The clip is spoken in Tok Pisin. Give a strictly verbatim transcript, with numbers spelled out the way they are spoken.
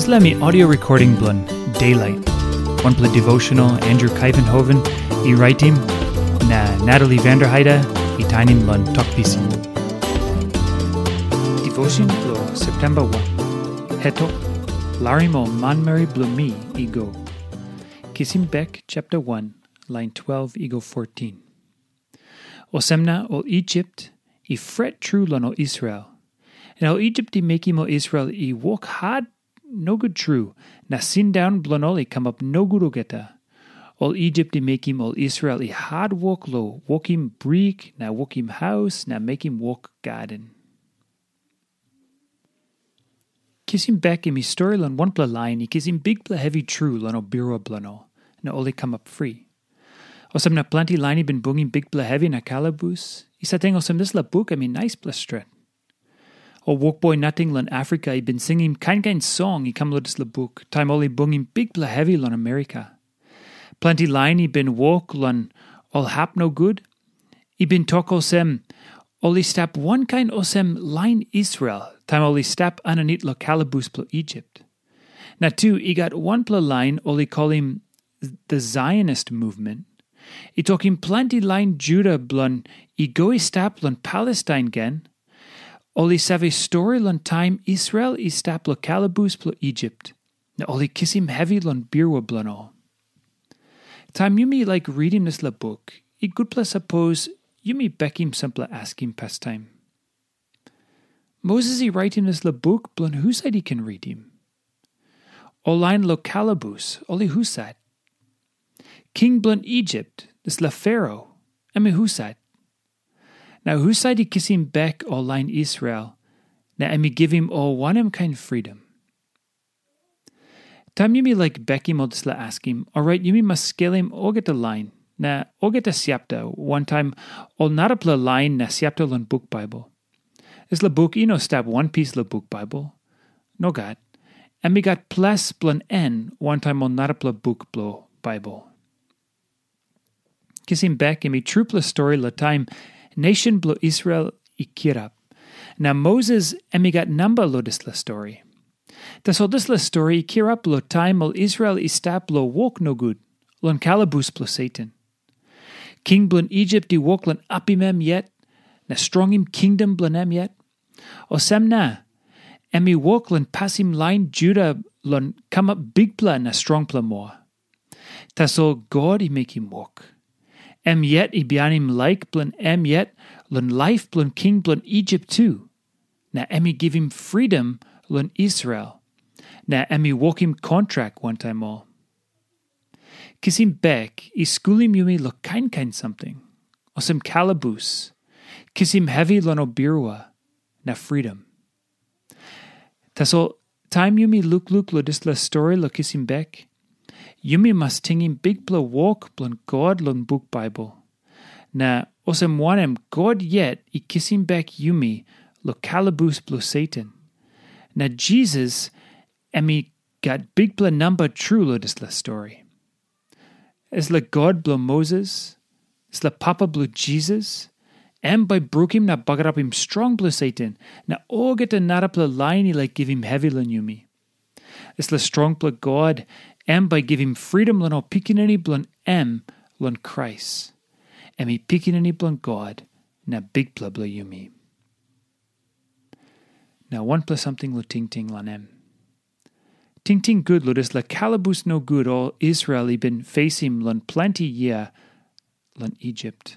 Dispela mi audio recording bilong Daylight. Wanpela devotional Andrew Kaivenhoven i raitim, na Natalie Vanderheide i tainim long Tok Pisin. Devotion bilong September wan. Hetok, larim ol manmeri bilong mi i go. Kisim bek chapter one, line twelve i go fourteen. Olsem na ol Isip i fret tru long ol Israel. Na ol Isip i mekim ol Israel i wok hat nogut tru, na sindaun bilong ol i kamap nogut olgeta. Ol Isip i mekim ol Israel i hat wok long wokim brik na wokim haus na mekim wok gaden. Kisim bek em i stori long wanpela lain i kisim bikpela hevi tru long ol birua bilong ol, na ol i kamap fri. Olsem na planti lain i bin bungim bikpela hevi na kalabus, i sateng olsem dispela buk em i naispela stret. Ol wokboi nating long Afrika i bin singim kain kain song i kam long dispela buk, taim ol i bungim bikpela hevi long Amerika. Planti lain i bin wok long ol hap nogut, i bin tok olsem, ol i stap wankain olsem lain Israel, taim ol i stap aninit long kalabus bilong Isip. Na tu i gat wanpela lain ol i kolim the Zionist movement. I tokim planti lain Juda bilong i go i stap long Palestain gen, ol i save stori long taim Israel i stap long kalabus bilong Isip, na ol i kisim hevi long birua bilong ol. Taim yumi laik ritim dispela buk, i gutpela sapos yumi bekim sampela askim pastaim. Moses i raitim dispela buk bilong husat i ken ritim? Ol lain long kalabus, ol i husat? King bilong Isip, dispela Fero, em i husat? Na husat i kisim bek ol lain Israel, na em i givim ol wanem kain fridom? Taim yumi laik bekim ol dispela askim, orait yumi mas skelim olgeta lain na olgeta siapta, wantaim ol narapela lain na siapta long buk Baibel. Dispela buk i no stap wanpis long buk Baibel. Nogat. Em i gat ples bilong en wantaim ol narapela buk bilong Baibel. Kisim bek em i trupela stori long taim nation bilong Israel i kirap. Na Moses em i gat namba long dispela stori. Tasol dispela stori i kirap long taim ol Israel i stap long wok nogut, long kalabus bilong Satan. King bilong Isip i wok long apim em yet, na strongim kingdom bilong em yet. Olsem na, em i wok long pasim lain Juda long kamap bikpela na strongpela moa. Tasol God i mekim wok. Em yet i bihainim laik bilong em yet long laip bilong king bilong Isip tu. Na em i givim fridom long Israel. Na em i wokim kontrak wantaim ol. Kisim bek i skulim yumi long kain kain samting, olsem kalabus, kisim hevi long ol birua, na fridom. Tasol taim yumi lukluk long dispela stori long kisim bek, yumi mas tingim bikpela wok bilong God long buk Baibel. Na olsem wanem God yet i kisim bek yumi long kalabus bilong Satan. Na Jisas em i gat bikpela namba tru long dispela stori. Dispela God bilong Moses, dispela Papa bilong Jisas, em bai brukim na bagarapim strong bilong Satan na olgeta narapela lain i laik givim hevi long yumi. Dispela strongpela God, em bai givim fridom long ol pikinini bilong em long Krais. Em i Pikinini bilong God na Bikpela bilong yumi. Na wanpela samting long tingting long em. Tingting gut long dispela kalabus nogut ol Israel i bin fesim long planti yia long Isip.